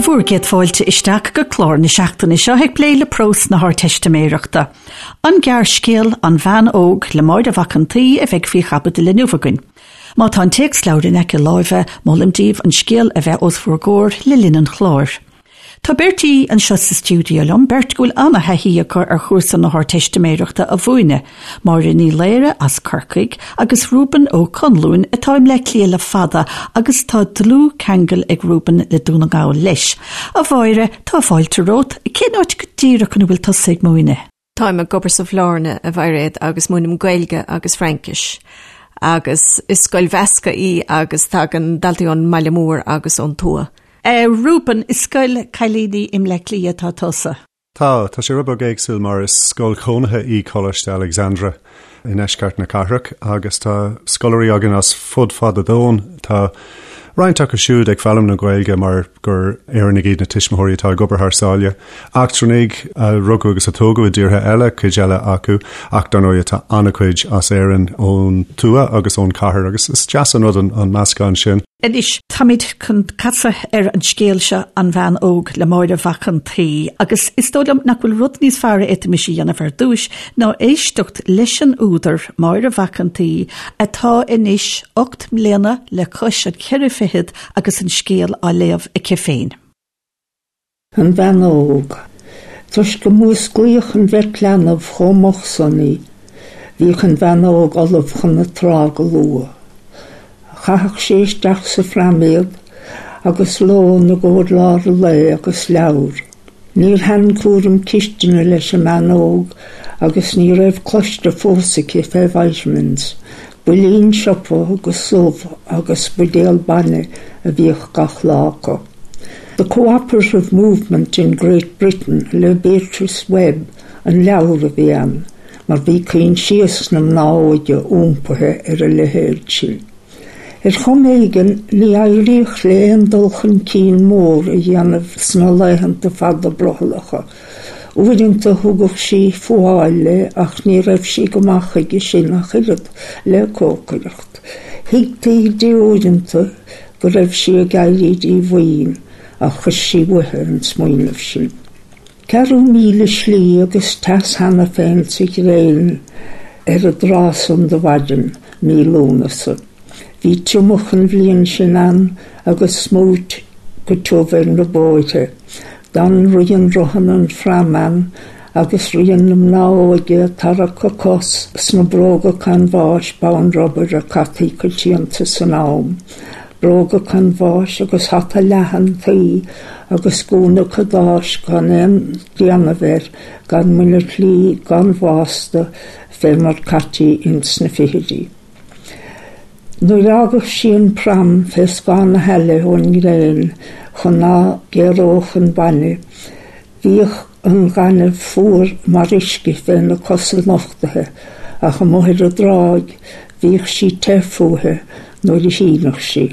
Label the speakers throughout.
Speaker 1: Bhur gcéad fáilte isteach go clár na seachtaine seo ag plé le prós na hArdteistiméireachta. An gearrscéal 'An Bhean Óg' le Máire Mhac an tSaoi a bheidh faoi chaibidil inniu againn. Má tá an téacsleabhar in aice láimhe, molaim daoibh an scéal a bheith os bhur gcomhair le linn an chláir. Tá beirt aoi anseo sa stiúideo liom, beirt go bhfuil ana-thaithí acu ar chúrsa na hArdteistiméireachta a mhúineadh, Máire Ní Laoire as Corcaigh agus Reuben Ó Conluain atá i mBleá Cliath le fada agus tá dlúthcheangal ag Reuben le Dún na nGall leis. A Mháire, tá fáilte romhat. Cén áit go díreach ina bhfuil tusa ag múineadh?
Speaker 2: Táim ag obair sa Bhlarna, a Mhairéad, agus múinim Gaeilge agus Fraincis. Agus is scoil mheasctha í agus tagann daltaí ón mbaile mór agus ón tuath.
Speaker 1: A Reuben, i scoil cailíní i mBleá Cliath atá tusa.
Speaker 3: Tá, tá sé rud beag éagsúil mar is scoil chónaithe í Coláiste Alexandra i ndeisceart na cathrach agus tá scoláirí againn as fud fad an domhain. Tá roinnt acu siúd ag foghlaim na Gaeilge mar gur Éireannaigh iad na tuismitheoirí atá ag obair thar sáile. Eachtrannaigh a rugadh agus a tógadh i dtíortha eile, cuid eile acu, ach dar ndóigh tá an-chuid as Éirinn ón tuath agus ón chathair agus is deas an rud an meascán sin.
Speaker 1: Anois, táimid chun casadh ar an scéal seo, An Bhean Óg le Máire Mhac an tSaoi, agus is dóigh liom nach bhfuil rud níos fearr a fhéadfaimis a dhéanamh ar dtúis ná éisteacht leis an údar, Máire Mhac an tSaoi, atá anois 8 mbliana le cois an cheithre fichead agus an scéal á léamh aici féin.
Speaker 4: An Bhean Óg. Toisc go músclaíodh an bheirt leanbh chomh moch san í, bhíodh an bhean óg ullamh chun na trá go luath. Chaitheadh sí isteach sa phram iad agus lón i gcomhair lár an lae agus leabhar. Níor thaitin cúram cistine leis an mbean óg agus ní raibh cloiste fós aici fé vitamins. Builín siopa agus subh agus buidéal bainne a bhíodh gach lá acu. The Cooperative Movement in Great Britain le Beatrice Webb an leabhar a bhí ann, mar bhí coinsias na mná óige iompaithe ar a leithéid sin. Ar chuma éigin, ní éiríodh léi aon dul chun cinn mór a dhéanamh sna laethanta fada brothallacha. Uaireanta thugadh sí fuáil léi ach ní raibh sí go maith chuige sin ach oiread le cócaireacht. Thuigtí di uaireanta go raibh sí ag éirí díomhaoin ach chuir sí uaithi an smaoineamh sin. Ceathrú míle slí agus teas cheana féin sa ghréin ar an dtráth san de mhaidin mí Lúnasa. Bhí triomach an bhliain sin ann agus smúit go tiubh ar na bóithre. D'fhan rian rothanna an phram ann agus rian na mná óige ag tarrac a cos sna bróga canbháis bonn rubair a caití coitianta san am. Bróga canbháis agus hata leathan tuí agus gúna cadáis gan aon déanamh air, gan muiniclí, gan bhásta, fé mar caití ins na fichidí. Nuair a fhágadh sí an pram fé scáth na haille ón ngréin chun ná géaródh an bainne, bhíodh an gaineamh fuar mar uisce fé na cosa nochtaithe ach amuigh ar an dtráigh bhíodh sí te fúithi nuair a shíneadh sí.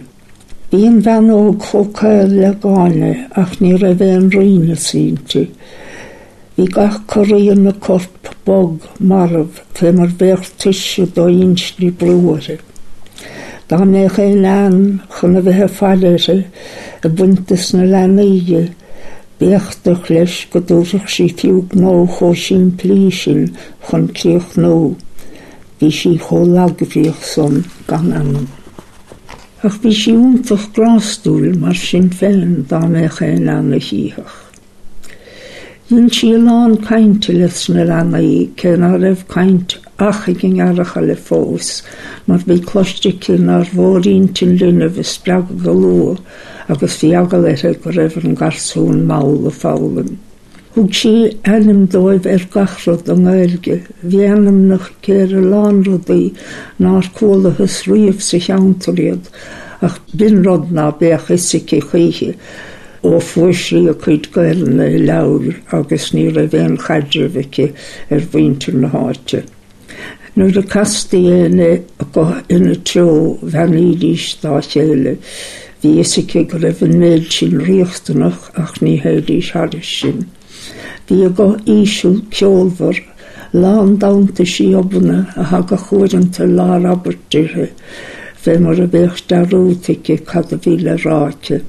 Speaker 4: Bhí an bhean óg chomh caol le gáinne ach ní raibh aon righneas inti. Bhí gach corraí ina corp bog, marbh, fé mar bheadh tuirse do-inste ag brú uirthi. Dá mbeadh aon bhean chun a bheith ag faire uirthi, ag baint dos na leanaí di, b'éachtach leis go dtabharfadh sí fiú gnó chomh simplí sin chun críochnú. Bhí sí chomh lagbhríoch san gan anam. Ach bhí sí iontach grástúil mar sin féin dá mbeadh aon bhean a chífeadh. Dhein sí a lán cainte leis na leanaí, cé ná raibh caint ach ag an ngearrchaile fós, mar bhí cloiste aici nár mhór intinn linbh a spreagadh go luath agus bhí eagal uirthi go raibh an garsún mall ag foghlaim. Thug sí ainm dóibh ar gach rud i nGaeilge. Bhí ainmneacha aici ar a lán rudaí nár chualathas riamh sa cheantar iad, ach b'in rud ná beadh fhios aici choíche. Ó fuair sí a cuid Gaelainne i leabhair agus ní raibh aon chaidreamh aici ar mhuintir na háite. Nuair a castaí éinne acu ina treo bheannaídís dá chéile. Bhí fhios aici go raibh an méid sin riachtanach ach ní théidís thairis sin. Bhí a guth íseal ceolmhar, lán d'iontaisí obanna a thagadh uaireanta i lár abairt uirthi, fé mar a bheadh dearúd aici cad a bhí le rá aici.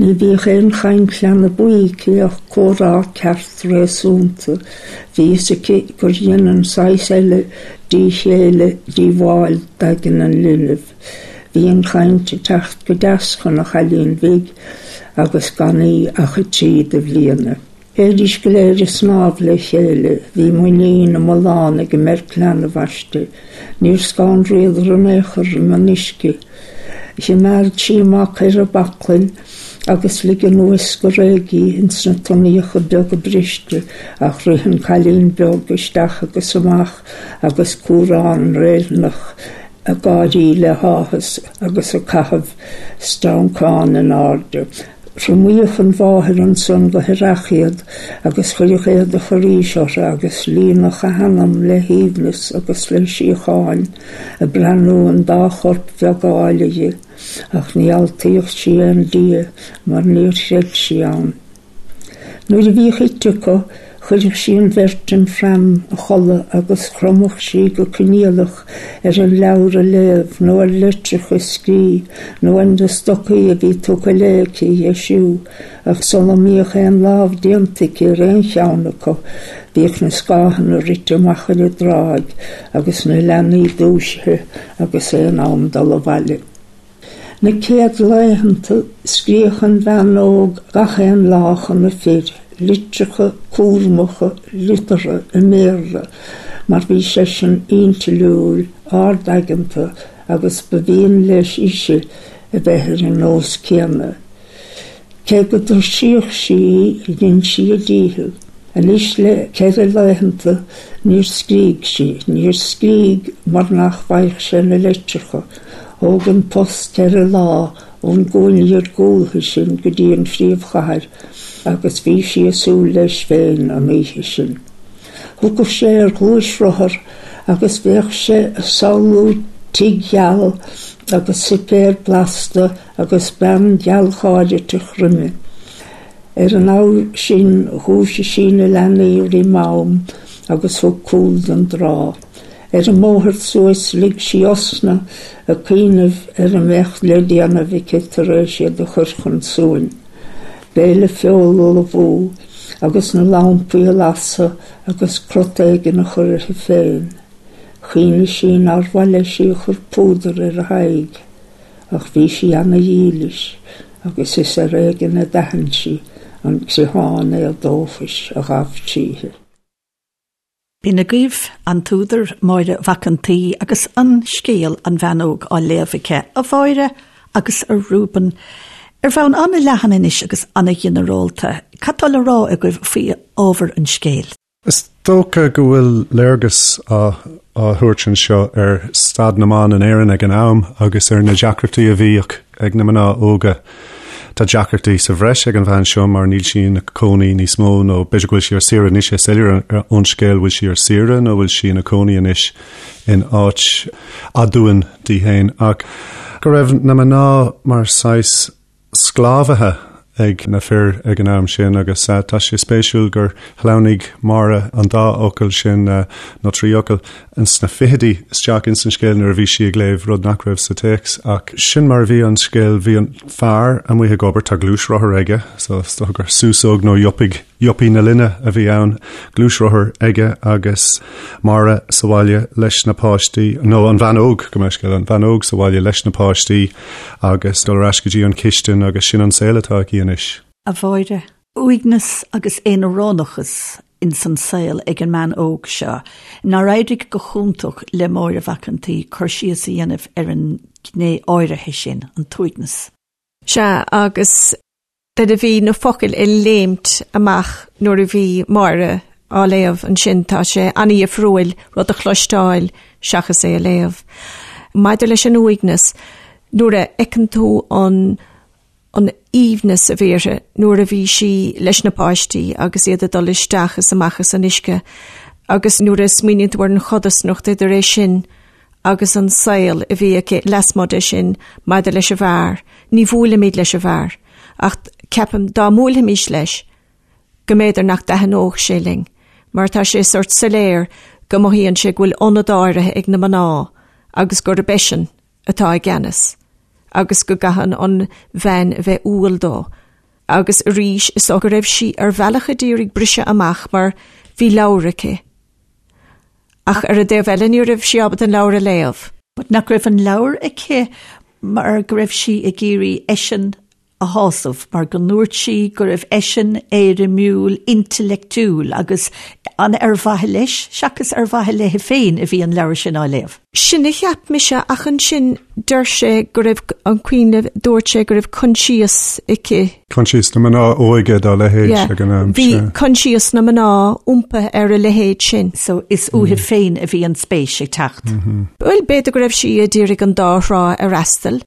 Speaker 4: Ní bhíodh aon chaint leanbaí aici ach comhrá ceart réasúnta. Bhí fhios aici gur dhein an saghas eile díchéille díobháil d'aigne an linbh. Bhí an chaint ag teacht go deas chun an chailín bhig agus gan í ach 3 de bhliana. Théidís go léir ag snámh le chéile. Bhí muinín iomlán ag an mbeirt leanbh aisti. Níor scanraíodar in aon chor roimh an uisce. Choimeád sí a mac ar a baclainn agus lig anuas go réidh í ins na tonnaíocha beaga briste ach rith an cailín beag isteach agus amach agus cúrán réilthíneach ag gáirí le háthas agus ag caitheamh streancán in airde. Thriomaíodh an mháthair ansan go haireach iad agus chuireadh éadach arís orthu agus líonadh a hanam le haoibhneas agus le síocháin ag breathnú an dá chorp bheag áille dhi, ach ní altaíodh sí aon Dia mar níor chreid sí ann. Nuair a bhíodh ite acu, chuireadh sí an bheirt im pram a chodladh agus chromadh sí go coinníollach ar an leabhar a léamh nó ar litreacha a scrí nó ar na stocaí a bhí tugtha léi aici a dheisiú, ach sula mbíodh aon lámh déanta aici ar aon cheann acu, bhíodh na scáthanna rite amach ar an dtráigh agus na leanaí dúisithe agus é in am dul abhaile. Na céad laethanta, scríodh an bhean óg gach aon lá chun a fir, litreacha cúramacha liteartha i mBéarla, mar bhí seisean intliúil, ard-aigeanta agus ba mhian leis ise a bheith ar an nós céanna. Cé go dtuirsíodh sí í, dhein sí a dícheall. Anois le ceithre laethanta níor scrígh sí. Níor scrígh mar nach bhfaigheadh sé na litreacha. Thóg an post ceithre lá ón gcúinne iargúltha sin go dtí an phríomhchathair agus bhí sí ag súil leis féin an oíche sin. Thiocfadh sé ar ghluaisrothar agus bheadh sé ag samhlú tigh geal agus suipéar blasta agus bean ghealgháiriteach roimhe. Ar an abhar sin dhúisigh sí na leanaí roim am agus thug cúl don dtrá. Ar an mbóthar suas lig sí osna ag cuimhneamh ar a mbeadh le déanamh aici tar éis iad a chur chun suain. Béile feola a ullmhú agus na lampaí a lasadh agus crot éigin a chur uirthi féin. Chuimhnigh sí nár mhaith leis í a chur púdar ar a haghaidh. Ach bhí sí ana-dhílis agus is ar éigean a d'aithin sí an criomhthann éadóchais a ghabh tríthi.
Speaker 1: B'in agaibh an t-údar, Máire Mhac an tSaoi, agus an scéal An Bhean Óg á léamh aici, a Mháire agus a Reuben. Ar bhonn an-leathan anois agus an-ghinearálta, cad tá le rá agaibh faoi ábhar an scéil?
Speaker 3: Is dócha go bhfuil léargas á thabhairt anseo ar staid na mban in Éirinn ag an am agus ar na deacrachtaí a bhíodh ag na mná óga. Tá deacrachtaí sa bhreis ag an bhean seo mar níl sí ina cónaí níos mó nó b'fhéidir go bhfuil sí ar saoire níl sé soiléir ón scéal bhfuil sí ar saoire nó bhfuil sí ina cónaí anois in áit aduain di féin ach go raibh na mná mar saghas sclábhaithe ag na fir ag an am sin agus tá sé spéisiúil gur shleamhnaigh Máire an dá fhocal sin, nó trí fhocal, sna fichidí isteach ins an scéal nuair a bhí sí ag léamh, rud nach raibh sa téacs. Ach sin mar a bhí an scéal, bhí an fear amuigh ag obair, tá gluaisrothar aige, so is dócha gur súsóg nó yuppie Yuppie na linne a bhí ann, gluaisrothar aige agus Máire sa bhaile leis na páistí, nó an bhean óg, gabh mo leithscéal, an bhean óg sa bhaile leis na páistí agus dul ar ais go dtí an chistin agus sin an saol atá aici anois.
Speaker 1: A Mháire. Uaigneas agus aonaránachas ins an saol ag an mbean óg seo. Nár éirigh go hiontach le Máire Mhac an tSaoi cur síos a dhéanamh ar an ghné áirithe sin, an t-uaigneas.
Speaker 2: Sea, agus Nuair a bhí na focail ag léimt amach nuair a bhí Máire á léamh ansin, tá sé an-dhifriúil rud a chloisteáil seachas é a léamh. Maidir leis an uaigneas, nuair a fheiceann tú an an aoibhneas a bhí uirthi nuair a bhí sí leis na páistí agus iad ag dul isteach is amach as an uisce agus nuair a smaoiníonn tú ar an chodarsnacht idir é sin agus an saol a bhí aici lasmuigh de sin maidir leis an bhfear. Ní bhuailimid leis an bhfear, ach ceapaim dá mbuailfimis leis go mb'fhéidir nach dtaitneodh sé linn, mar tá sé sórt soiléir go mothaíonn sé go bhfuil ionad áirithe ag na mná agus gurb eisean atá i gceannas agus go gcaitheann an bhean a bheith umhal dó. Agus arís, is dócha go raibh sí ar bhealach a d'iarraidh briseadh amach mar bhí leabhar aici. Ach ar an dtaobh eile ní raibh sí ábalta an leabhar a léamh.
Speaker 1: But nach raibh an leabhar aici mar go raibh sí ag iarraidh eisean a shásamh, mar go ndúirt sí go raibh eisean éirimiúil, intleachtúil agus an ar mhaithe leis seachas ar mhaithe léi féin a bhí an leabhar sin á léamh.
Speaker 2: Sin a cheap mise ach ansin deir sé go raibh, an cuimhin libh, dúirt sé go raibh coinsias aici.
Speaker 3: Coinsias na mná óige dá leithéid ag an am.
Speaker 2: Bhí coinsias na mná iompaithe ar a leithéid sin.
Speaker 1: So is uaithi féin a bhí an spéis ag teacht.
Speaker 2: Bhuel, b'fhéidir go raibh sí a d'iarraidh an dá thrá a fhreastal.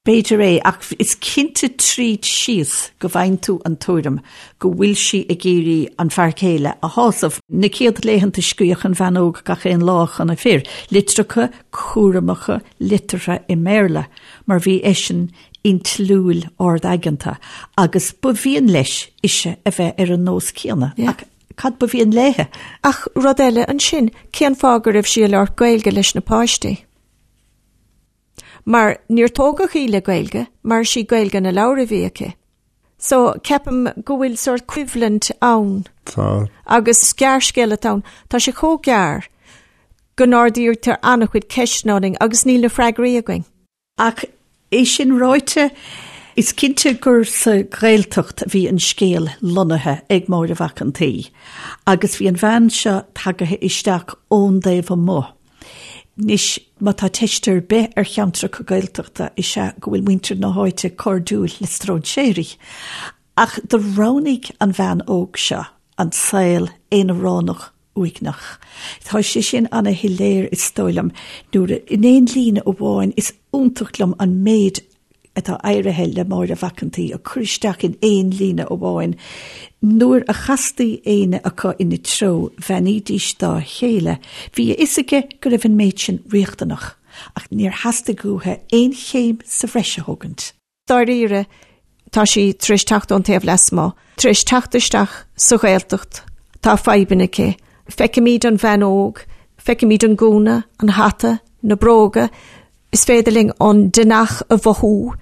Speaker 1: B'fhéidir é, ach is cinnte tríd síos go bhfaigheann tú an tuairim go bhfuil sí ag iarraidh an fear céile a shásamh. Na céad laethanta scríodh an bhean óg gach aon lá chun a fir, litreacha cúramacha liteartha i mBéarla, mar bhí eisean intliúil ard-aigeanta agus ba mhian leis ise a bheith ar an nós céanna. Ach cad ba mhian léithe?
Speaker 2: Ach rud eile ansin, cén fáth go raibh sí ag labhairt Gaeilge leis na páistí? Mar níor tógadh í le Gaeilge, mar is í Gaeilge na leabhar a bhí aici. So, ceapaim go bhfuil sórt coimhlint ann.
Speaker 3: Tá.
Speaker 2: Agus gearrscéal atá ann. Tá sé chomh gearr go n-ardaítear an-chuid ceisteanna orainn agus níl na freagraí againn.
Speaker 1: Ach é sin ráite, is cinnte gur sa Ghaeltacht a bhí an scéal lonnaithe ag Máire Mhac an tSaoi agus bhí an bhean seo tagaithe isteach ón dtaobh amuigh. Anois, má tá teist ar bith ar cheantracha Gaeltachta is ea go bhfuil muintir na háite cairdiúil le stróinséirí. Ach do roghnaigh an bhean óg seo an saol aonaránach uaigneach. Tá sé sin ana-shoiléir is dóigh liom nuair a, in aon líne amháin, is iontach liom an méid atá éirithe le Máire Mhac an tSaoi a chur isteach in aon líne amháin. Nuair a chastaí éinne acu ina treo, bheannaídís dá chéile. Bhí a fhios aige go raibh an méid sin riachtanach, ach níor theastaigh uathu aon chéim sa bhreis a thógaint.
Speaker 2: Dáiríre, tá sí tar éis teacht ón taobh lasmuigh, tar éis teacht isteach sa Ghaeltacht, tá fadhbanna aici. Feicimid an bhean óg, feicimid an gúna, an hata, na bróga, Is féidir linn an deannach a mhothú,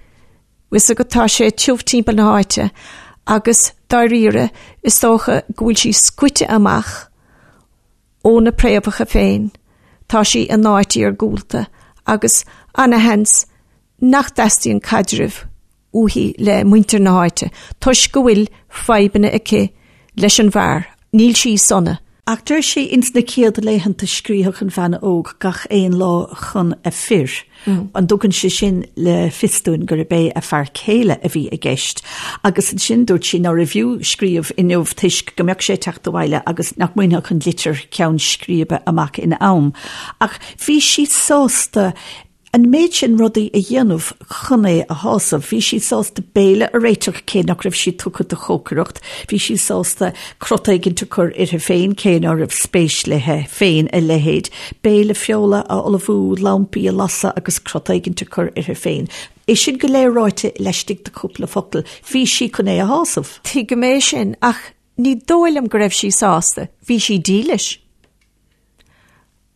Speaker 2: bhfuil fhios agat, tá sé tiubh timpeall na háite agus dáiríre is dócha go bhfuil sí scoite amach óna préamhacha féin, tá sí in áit iargúlta agus ana-sheans nach dteastaíonn caidreamh uaithi le muintir na háite toisc go bhfuil fadhbanna aici leis an bhfear, níl sí sona.
Speaker 1: Ach deir sí ins na céad laethanta scríothadh an bhean óg gach aon lá chun a fir. An dtugann sé sin le fios dúinn gurb é a fear céile a bhí i gceist? Agus ansin dúirt sí nárbh fhiú scríobh inniu toisc go mbeadh sé ag teacht abhaile agus nach mbainfeadh an litir ceann scríbe amach in am. Ach bhí sí sásta An méid sin rudaí a dhéanamh chun é a shásamh. Bhí sí sásta béile a réiteach cé nach raibh sí tugtha do chócaireacht. Bhí sí sásta crot éigint a chur uirthi féin cé ná raibh spéis léi féin a leithéid. Béile feola a ullmhú, lampaí a lasadh agus crot éigint a chur uirthi féin. É sin go léir ráite laistigh de chúpla focal. Bhí sí chun é a shásamh.
Speaker 2: Tuigim é sin ach ní dóigh liom go raibh sí sásta. Bhí sí dílis.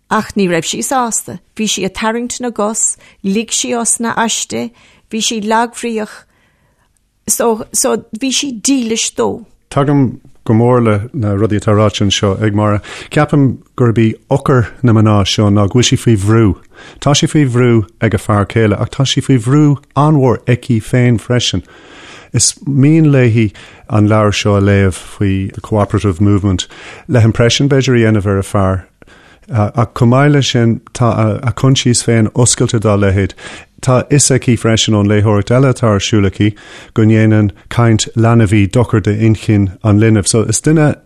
Speaker 2: Ach ní raibh sí sásta. Bhí sí ag tarraingt na gcos, lig sí osna aisti, bhí sí lagbhríoch, so, so bhí sí dílis dó.
Speaker 3: Tagaim go mór le na rudaí atá ráite anseo ag Máire. Ceapaim gurb í eochair na mná seo ná go bhfuil sí faoi bhrú. Tá sí faoi bhrú ag a fear céile ach tá sí faoi bhrú an-mhór aici féin freisin. Is mian léi an leabhar seo a léamh faoi the cooperative movement le himpression b'fhéidir a dhéanamh ar a fear. Ach chomh maith leis sin, tá a coinsias féin oscailte dá leithéid. Tá a fhios aici freisin ón léitheoireacht eile atá ar siúl aici go ndéanann caint leanbhaí dochar d'inchinn an linbh. So is duine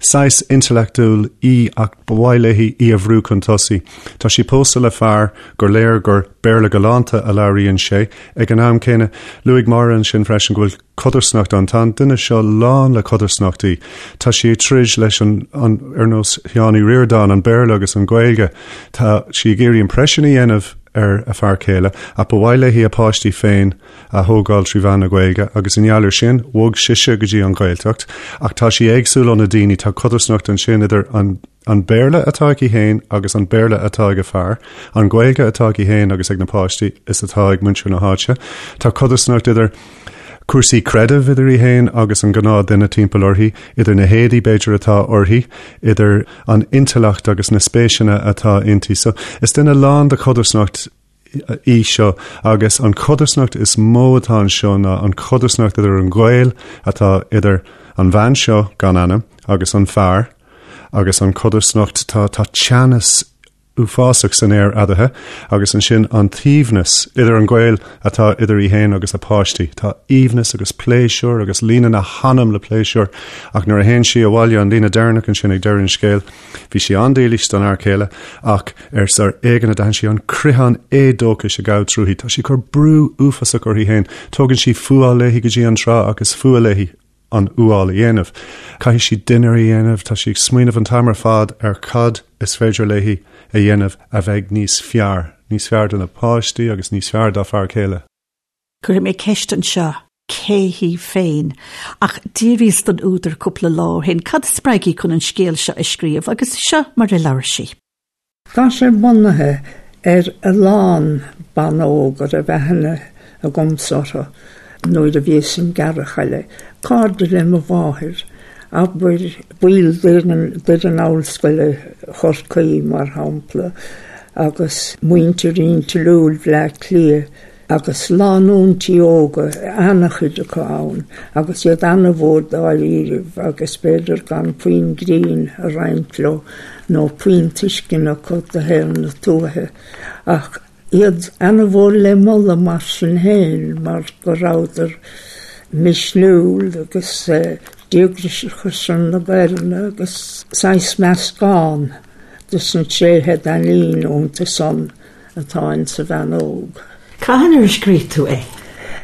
Speaker 3: saghas intleachtúil í ach ba mhaith léi í a bhrú chun tosaigh. Tá sí pósta le fear gur léir gur Béarla galánta a labhraíonn sé. Ag an am céanna, luaigh Máire ansin freisin go bhfuil codarsnacht ann. Tá an duine seo lán le codarsnachtaí. Tá sí ag troid leis an, an, ar nós Sheáin Uí Ríordáin, an Béarla agus an Ghaeilge. Tá sí ag iarraidh impression a dhéanamh ar a fear céile, ach ba mhaith léi a páistí féin a thógáil trí mheán na Gaeilge agus i ngeall ar sin, bhog sise go dtí an Ghaeltacht. Ach tá sí éagsúil ó na daoine, tá codarsnacht ansin idir an An Béarla atá aici féin agus an Béarla atá ag a fear, an Ghaeilge atá aici féin agus ag na páistí is atá ag muintir na háite. Tá codarsnacht idir. cúrsaí creidimh idir í féin agus an gnáth duine timpeall uirthi, idir na héadaí b'fhéidir atá uirthi, idir an intleacht agus na spéiseanna atá inti. So is duine lán de chodarsnacht í seo agus an chodarsnacht is mó atá anseo ná an chodarsnacht idir an gaol atá idir an bhean seo gan ainm agus an fear agus an chodarsnacht tá tá teannas uafásach san aer eadarthu agus ansin an t-aoibhneas idir an gaol atá idir í féin agus a páistí. Tá aoibhneas agus pléisiúr agus líonann a hanam le pléisiúr ach nuair a théann sí abhaile an líne deireanach ansin ag deireadh an scéil, bhí sí an-dílis don fhear céile ach ar ar éigean a d'aithin sí an creathán éadóchais a ghabh tríthi. Tá sí ag cur brú uafásach uirthi féin. Tógann sí fuáil léi go dtí an trá ach is fuath léi an fhuáil a dhéanamh. Caithfidh sí dinnéar a dhéanamh, tá sí ag smaoineamh an t-am ar fad ar cad is féidir léi a dhéanamh a bheidh níos fearr, níos fearr do na páistí agus níos fearr dá fear céile.
Speaker 1: Cuirfidh mé ceist anseo, cé hí féin? Ach d'fhiafraíos den údar cúpla lá ó shin cad a spreag í chun an scéal seo a scríobh agus seo mar a labhair sí.
Speaker 4: Tá sé bunaithe ar a lán ban óg a raibh aithne agamsa orthu nuair a bhíos im gearrchaile, cairde le mo mháthair, abair, baill d'fhoireann Ollscoile Chorcaí, mar shampla, agus muintir intliúil Bhleá Cliath. Agus lánúintí óga, ana-chuid acu ann, agus iad ana-mhór dáiríribh agus b'fhéidir gan puinn grinn a roinnt leo nó puinn tuisceana acu do shaol na tuaithe, ach iad ana-mhór le moladh mar sin féin mar go rabhadar misniúil agus díograiseach ar son na Gaelainne agus saghas meascán dos na tréithe a d'aithnínn iontu san. atá in sa bhean óg.
Speaker 1: Cathain ar scríobh tú é?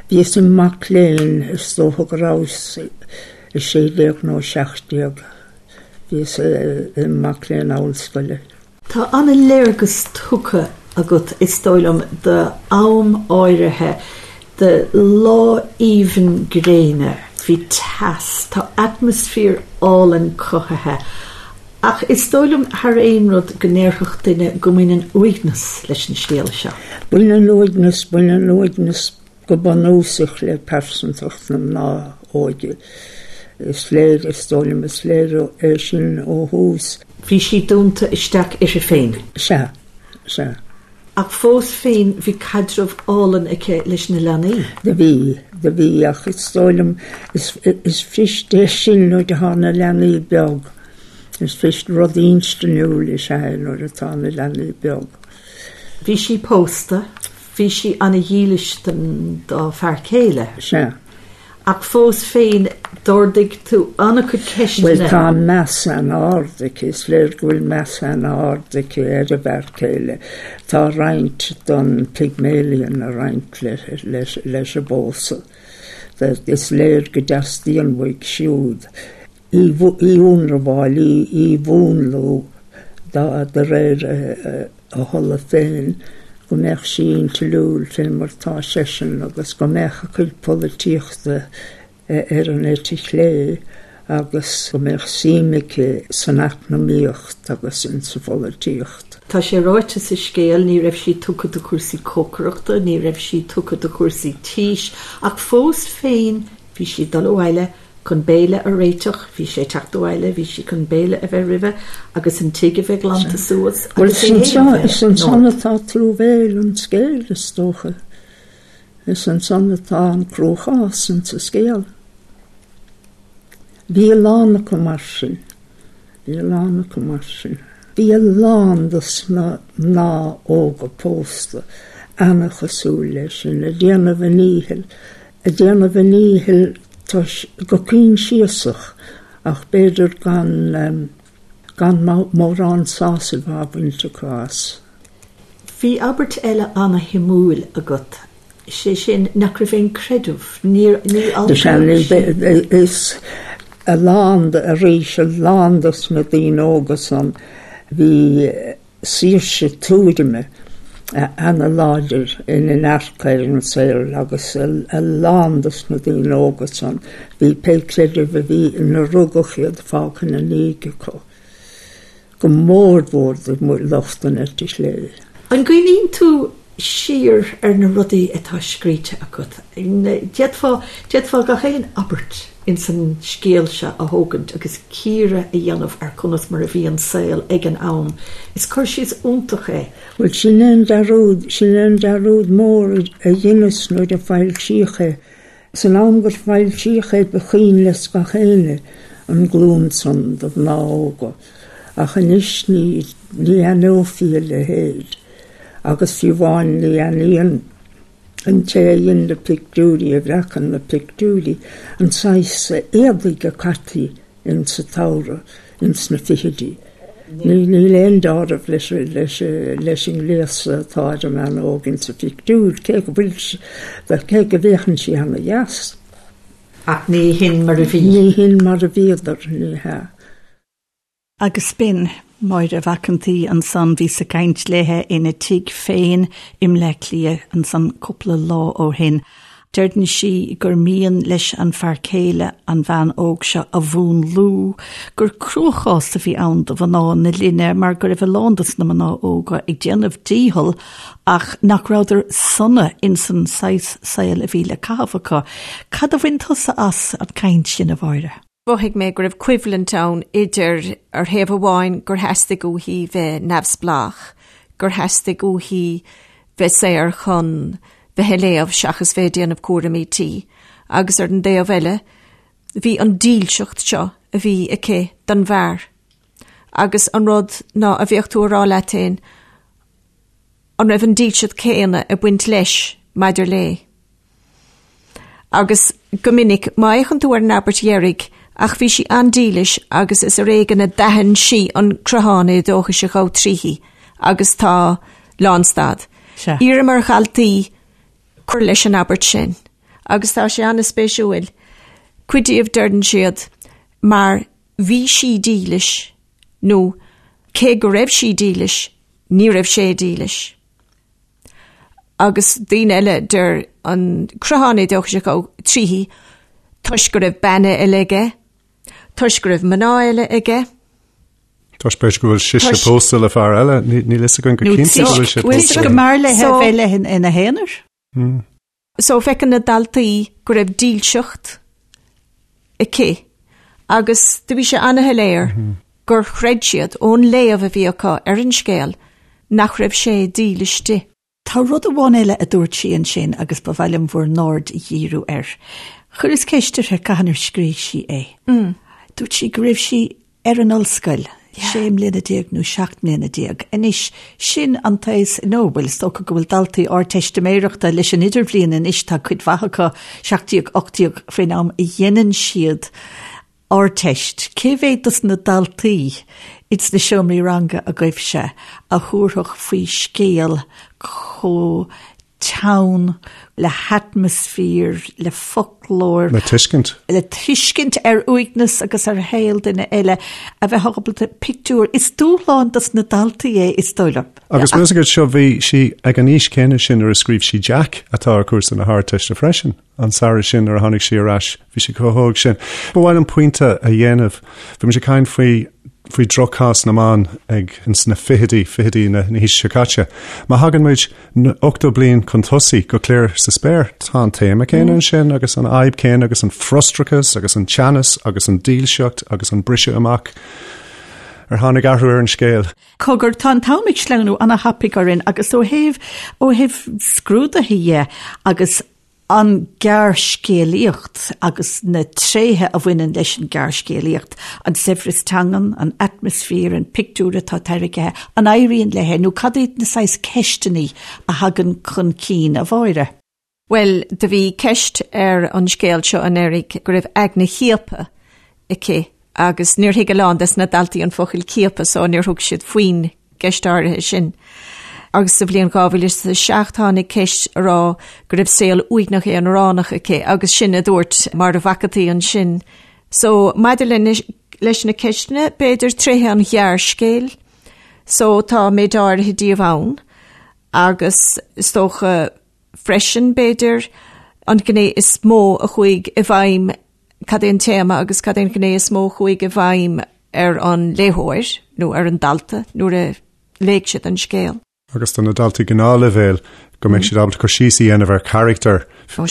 Speaker 4: Bhíos im mac léinn, is dócha go rabhas 16 nó 17. Bhíos im mac léinn ollscoile.
Speaker 1: Tá an-léargas tugtha agat, is dóigh liom, d'am áirithe, de lá aoibhinn gréine, bhí teas, tá atmaisféar álainn cothaithe Ach is dóigh liom, thar aon rud, go ndéarfadh duine go mbaineann uaigneas leis an scéal seo.
Speaker 4: Baineann uaigneas, baineann uaigneas go bunúsach le pearsantacht na mná óige. Is léir, is dóigh liom, is léir é sin ó thús.
Speaker 1: Bhí sí dúnta isteach uirthi féin.
Speaker 4: Sea, sea.
Speaker 1: Ach fós féin bhí caidreamh álainn aici leis na leanaí.
Speaker 4: Do bhí, do bhí, ach is dóigh liom, is, is fuirist é sin nuair atá na leanaí beag. Is fuirist, rud instinniúil is ea é nuair atá na leanaí beag.
Speaker 1: Bhí sí pósta, bhí sí ana-dhílis don, dá fear céile.
Speaker 4: Sea.
Speaker 1: Ach fós féin, d'ardaigh tú an-chuid ceisteanna.
Speaker 4: Bhuel, tá meas an-ard aici, is léir go bhfuil meas an-ard aici ar a bhfear céile. Tá roinnt den Pygmalion ag roinnt leis an bpósadh. Is léir go dteastaíonn uaidh siúd í a ionramháil, í a mhúnlú de réir a thola féin, go mbeadh sí intliúil fé mar tá seisean agus go mbeadh a cuid polaitíochta ar an eite chlé agus go mbeadh suim aici san eacnamaíocht agus insa pholaitíocht.
Speaker 1: Tá sé ráite sa scéal, ní raibh sí tugtha do chúrsaí cócaireachta, ní raibh sí tugtha do chúrsaí tís, ach fós féin bhí sí ag dul abhaile chun béile a réiteach, bhí sé ag teacht abhaile, bhí sí chun béile a bheith roimhe agus an tigh a bheith glanta suas
Speaker 4: agus é féin a bheith. Is ansan atá truamhéil an scéil, is dócha. Is ansan atá an cruachás insa scéal. Bhí a lán acu mar sin. Bhí a lán acu mar sin. Bhí a lán dos na mná óga pósta ana-chosúil leis sin, ag déanamh a ndíchill, ag déanamh a ndíchill toisc, go coinsiasach ach b'fhéidir gan, gan mórán sásaimh á bhaint acu as.
Speaker 1: Bhí abairt eile ana-shuimiúil agat. Sé sin, nach raibh aon creideamh, níor, ní altóir
Speaker 4: sí. Is a lán, arís, a lán dos na daoine óga san, bhí saoirse tuairime ana-láidir ina ndearcadh ar an saol agus a lán dos na daoine óga san, bhí pé creideamh a bhí ina rugadh iad fágtha ina ndiaidh acu. go mór mhór do lucht an eite chlé.
Speaker 1: An gcuimhníonn tú siar ar na rudaí atá scríte agat, d'fhéadfá, d'fhéadfá gach aon abairt ins an scéal seo a thógaint agus cíoradh a dhéanamh ar conas mar a bhí an saol ag an am. Is cur síos iontach é.
Speaker 4: Bhuel, sin é an dearúd, sin é an dearúd mór a dheineas nuair a foilsíodh é. San am gur foilsíodh é ba chuimhin le gach éinne an glúin san de mhná óga, ach anois ní, ní aithneofaí a leithéid. Agus fiú amháin ní aithníonn an té a dhein na pictiúirí, a bhreacann na pictiúirí, an saghas éadaigh a caití ins an tsamhradh ins na fichidí. Níl aon deáramh leis leis an ngléasadh atá ar an mbean óg ins an phictiúr, cé go bhfuil cé go bhféachann sí ana dheas.
Speaker 1: Ach ní hin mar a bhí.
Speaker 4: Ní hin mar a bhíodar, ní hea.
Speaker 1: Agus b'in Máire Mhac an tSaoi ansan, bhíos ag caint léithe ina tigh féin i mBleá Cliath ansan cúpla lá ó shin. Deireann sí gur mian leis an fear céile an bhean óg seo a mhúnlú, gur cruachás a bhí ann do mhná na linne mar go raibh a lán dos na mná óga ag déanamh dícheall ach nach rabhadar sona insan saghas saoil a bhí le caitheamh acu. Cad a bhain tusa as an gcaint sin, a Mháire?
Speaker 2: Mhothaigh mé go raibh coimhlint ann idir, ar thaobh amháin, gur theastaigh uaithi bheith neamhspleách, gur theastaigh uaithi bheith saor chun bheith ag léamh seachas bheith ag déanamh cúraimí tí, agus ar an dtaobh eile, bhí an dílseacht seo a bhí aici don bhfear. Agus an rud ná a bheadh tú a rá leat féin, an raibh an dílseacht céanna ag baint leis maidir léi? Agus go minic, má fhéachann tú ar an abairt dheiridh, ach bhí sí an-dílis agus is ar éigean a d'aithin sí an croitheán éadóchais a ghabh tríthi agus tá lánstad.
Speaker 1: Sea.
Speaker 2: Iarraim ar dhaltaí cur leis an abairt sin agus tá sé an-spéisiúil. Cuid díobh deireann siad mar bhí sí dílis nó cé go raibh sí dílis, ní raibh sé dílis. Agus daoine eile deir an croitheán éadóchais a ghabh tríthi toisc go raibh bean eile aige, toisc go raibh mná eile aige.
Speaker 3: Toisc b'fhéidir go bhfuil sise pósta le fear eile, níl fhios againn go cinnte go bhfuil sé
Speaker 1: pósta. Nó go mb'fhearr léi a bheith léi ina haonar.
Speaker 2: So feiceann na daltaí go raibh dílseacht aici agus do bhí sé ana-shoiléir gur chreid siad ón léamh a bhí acu ar an scéal nach raibh sé dílis di.
Speaker 1: Tá rud amháin eile a dúirt sí ansin agus ba mhaith liom bhur n-aird a dhíriú air. Chuireas ceist uirthi cathain ar scríobh sí é. Dúirt sí go raibh sí ar an ollscoil, 16 mbliana nó 17 mbliana. Anois, sin an t-aos, nó, bhuel, is dócha go bhfuil daltaí Ardteistiméireachta leis an Idirbhliain anois, tá cuid mhaith acu, 17, 18, faoin am a dhéanann siad Ardteist. Cé mhéad dos na daltaí ins na seomraí ranga agaibhse a thabharfadh faoi scéal chomh teann, le hatmaisféar, le foclóir.
Speaker 3: Le tuiscint.
Speaker 1: Le tuiscint ar uaigneas agus ar shaol duine eile, a bheith ábalta pictiúr. Is dúshlán dos na daltaí é, is dóigh liom.
Speaker 3: Agus meas agat seo, bhí sí ag an aois céanna sin nuair a scríobh sí Jack, atá ar chúrsa na hArdteiste freisin. An samhradh sin nuair a tháinig sí ar ais, bhí sí chomh hóg sin. Ba mhaith liom pointe a dhéanamh. Bhí muid ag caint faoi faoi dhrochchás na mban ag ins na fichidí, fichidí na haoise seo caite. Má thagann muid 80 bliain chun tosaigh go Cliar sa Spéir, tá an téama céanna ansin agus an fhadhb céanna agus an frustrachas agus an teannas agus an dílseacht agus an briseadh amach. Ar tháinig athrú ar an scéal?
Speaker 1: Cogar, tá an t-am ag sleamhnú ana-thapaidh orainn agus ó thaobh, ó thaobh scrúduithe dhe agus an ghearrscéalaíocht agus na tréithe a bhaineann leis an ghearrscéalaíocht, an saibhreas teangan, an atmaisféar, an pictiúr atá tairgthe, an éiríonn léi nó cad iad na saghas ceisteanna a thagann chun cinn, a Mháire?
Speaker 2: Bhuel, do bhí ceist ar an scéal seo anuraidh go raibh aigne chiaptha aici agus níor thuig a lán des na daltaí an focal ciapadh so níor thug siad faoin gceist áirithe sin. Agus sa bhliain 2007 tháinig ceist a rá go raibh saol uaigneach aonaránach aici agus sin a dúirt Máire Mhac an tSaoi ansin. So maidir le leis na ceisteanna, b'fhéidir tréithe an ghearrscéil, so tá méid áirithe díobh ann agus is dócha freisin b'fhéidir an ghné is mó a chuaigh i bhfeidhm cad é an téama agus cad é an ghné is mó a chuaigh i bhfeidhm ar an léitheoir nó ar an dalta nuair a léigh siad an scéal.
Speaker 3: Agus do na daltaí gnáthleibhéil, go mbeidh siad ábalta cur síos a dhéanamh ar charachtar,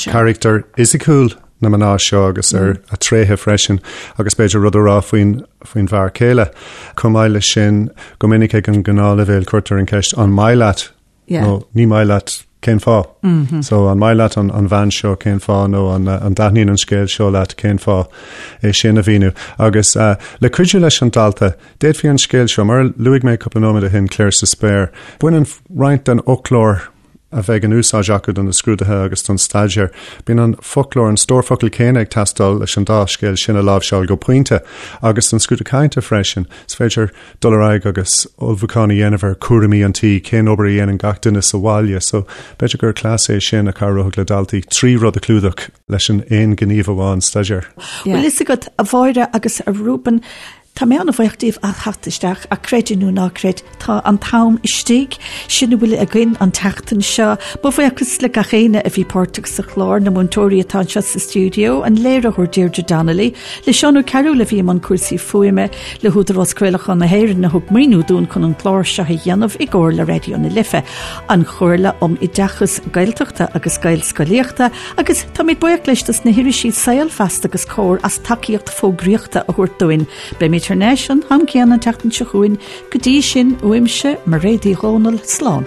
Speaker 3: carachtar fhisiciúil na mná seo agus ar a tréithe freisin, agus b'fhéidir rud a rá faoin faoin bhfear céile. Chomh maith leis sin, go minic ag an ngnáthleibhéal cuirtear an cheist an maith leat nó ní maith leat cén fáth? So an maith leat an an bhean seo cén fáth nó an an dtaitníonn an scéal seo leat cén fáth é sin a mhíniú. Agus le cuidiú leis an dalta, D'fhéadfaí an scéal seo, mar a luaigh mé cúpla nóiméad ó shin, Clare sa Spéir, baineann roinnt den fhoclóir a bheidh in úsáid acu do na scrúduithe agus don staidéar. Bíonn an foclóir, an stór focal céanna ag teastáil leis an dá scéal sin a láimhseáil go pointe, agus don scrúdú cainte freisin. Is féidir dul ar aghaidh agus ullmhúchán a dhéanamh ar chúraimí an tí, cén obair a dhéanann gach duine sa bhaile. So, b'fhéidir gur cleas é sin a chabhródh le daltaí trí rud a chlúdach leis an aon ghníomh amháin staidéir.
Speaker 1: Bhfuil fhios agat, a Mháire agus a Reuben, Tá mé an-bhuíoch díobh as theacht isteach ach creid é nó ná creid, tá an t-am istigh. Sin a bhfuil againn an tseachtain seo. Mo bhuíochas le gach éinne a bhí páirteach sa chlár, na múinteoirí atá anseo sa stiúideo, an léiritheoir Deirdre Donnelly, le Seán Ó Cearúil a bhí i mbun cúrsaí fuaime, le hÚdarás Craolacháin na hÉireann a thug maoiniú dúinn chun an clár seo a dhéanamh i gcomhar le Raidió na Life, an Chomhairle um Oideachas Gaeltachta agus Gaelscolaíochta agus táimid buíoch leis dos na hirisí Saol, Feasta agus Comhar as tacaíocht fógraíochta a thabhairt dúinn. Beimid thar n-ais an t-am céanna an tseachtain seo chugainn. Go dtí sin, uaimse, Mairéad Uí Dhomhnaill, slán.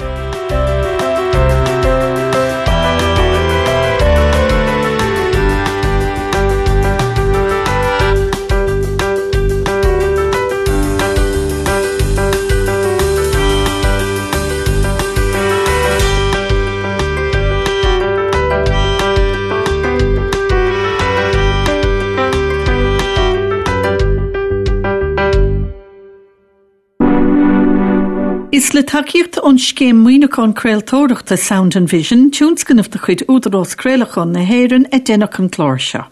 Speaker 1: Is le tacaíocht ón Scéim Maoiniúcháin Craoltóireachta Sound and Vision, tionscnamh de chuid Údarás Craolacháin na hÉireann, a deineadh an clár seo.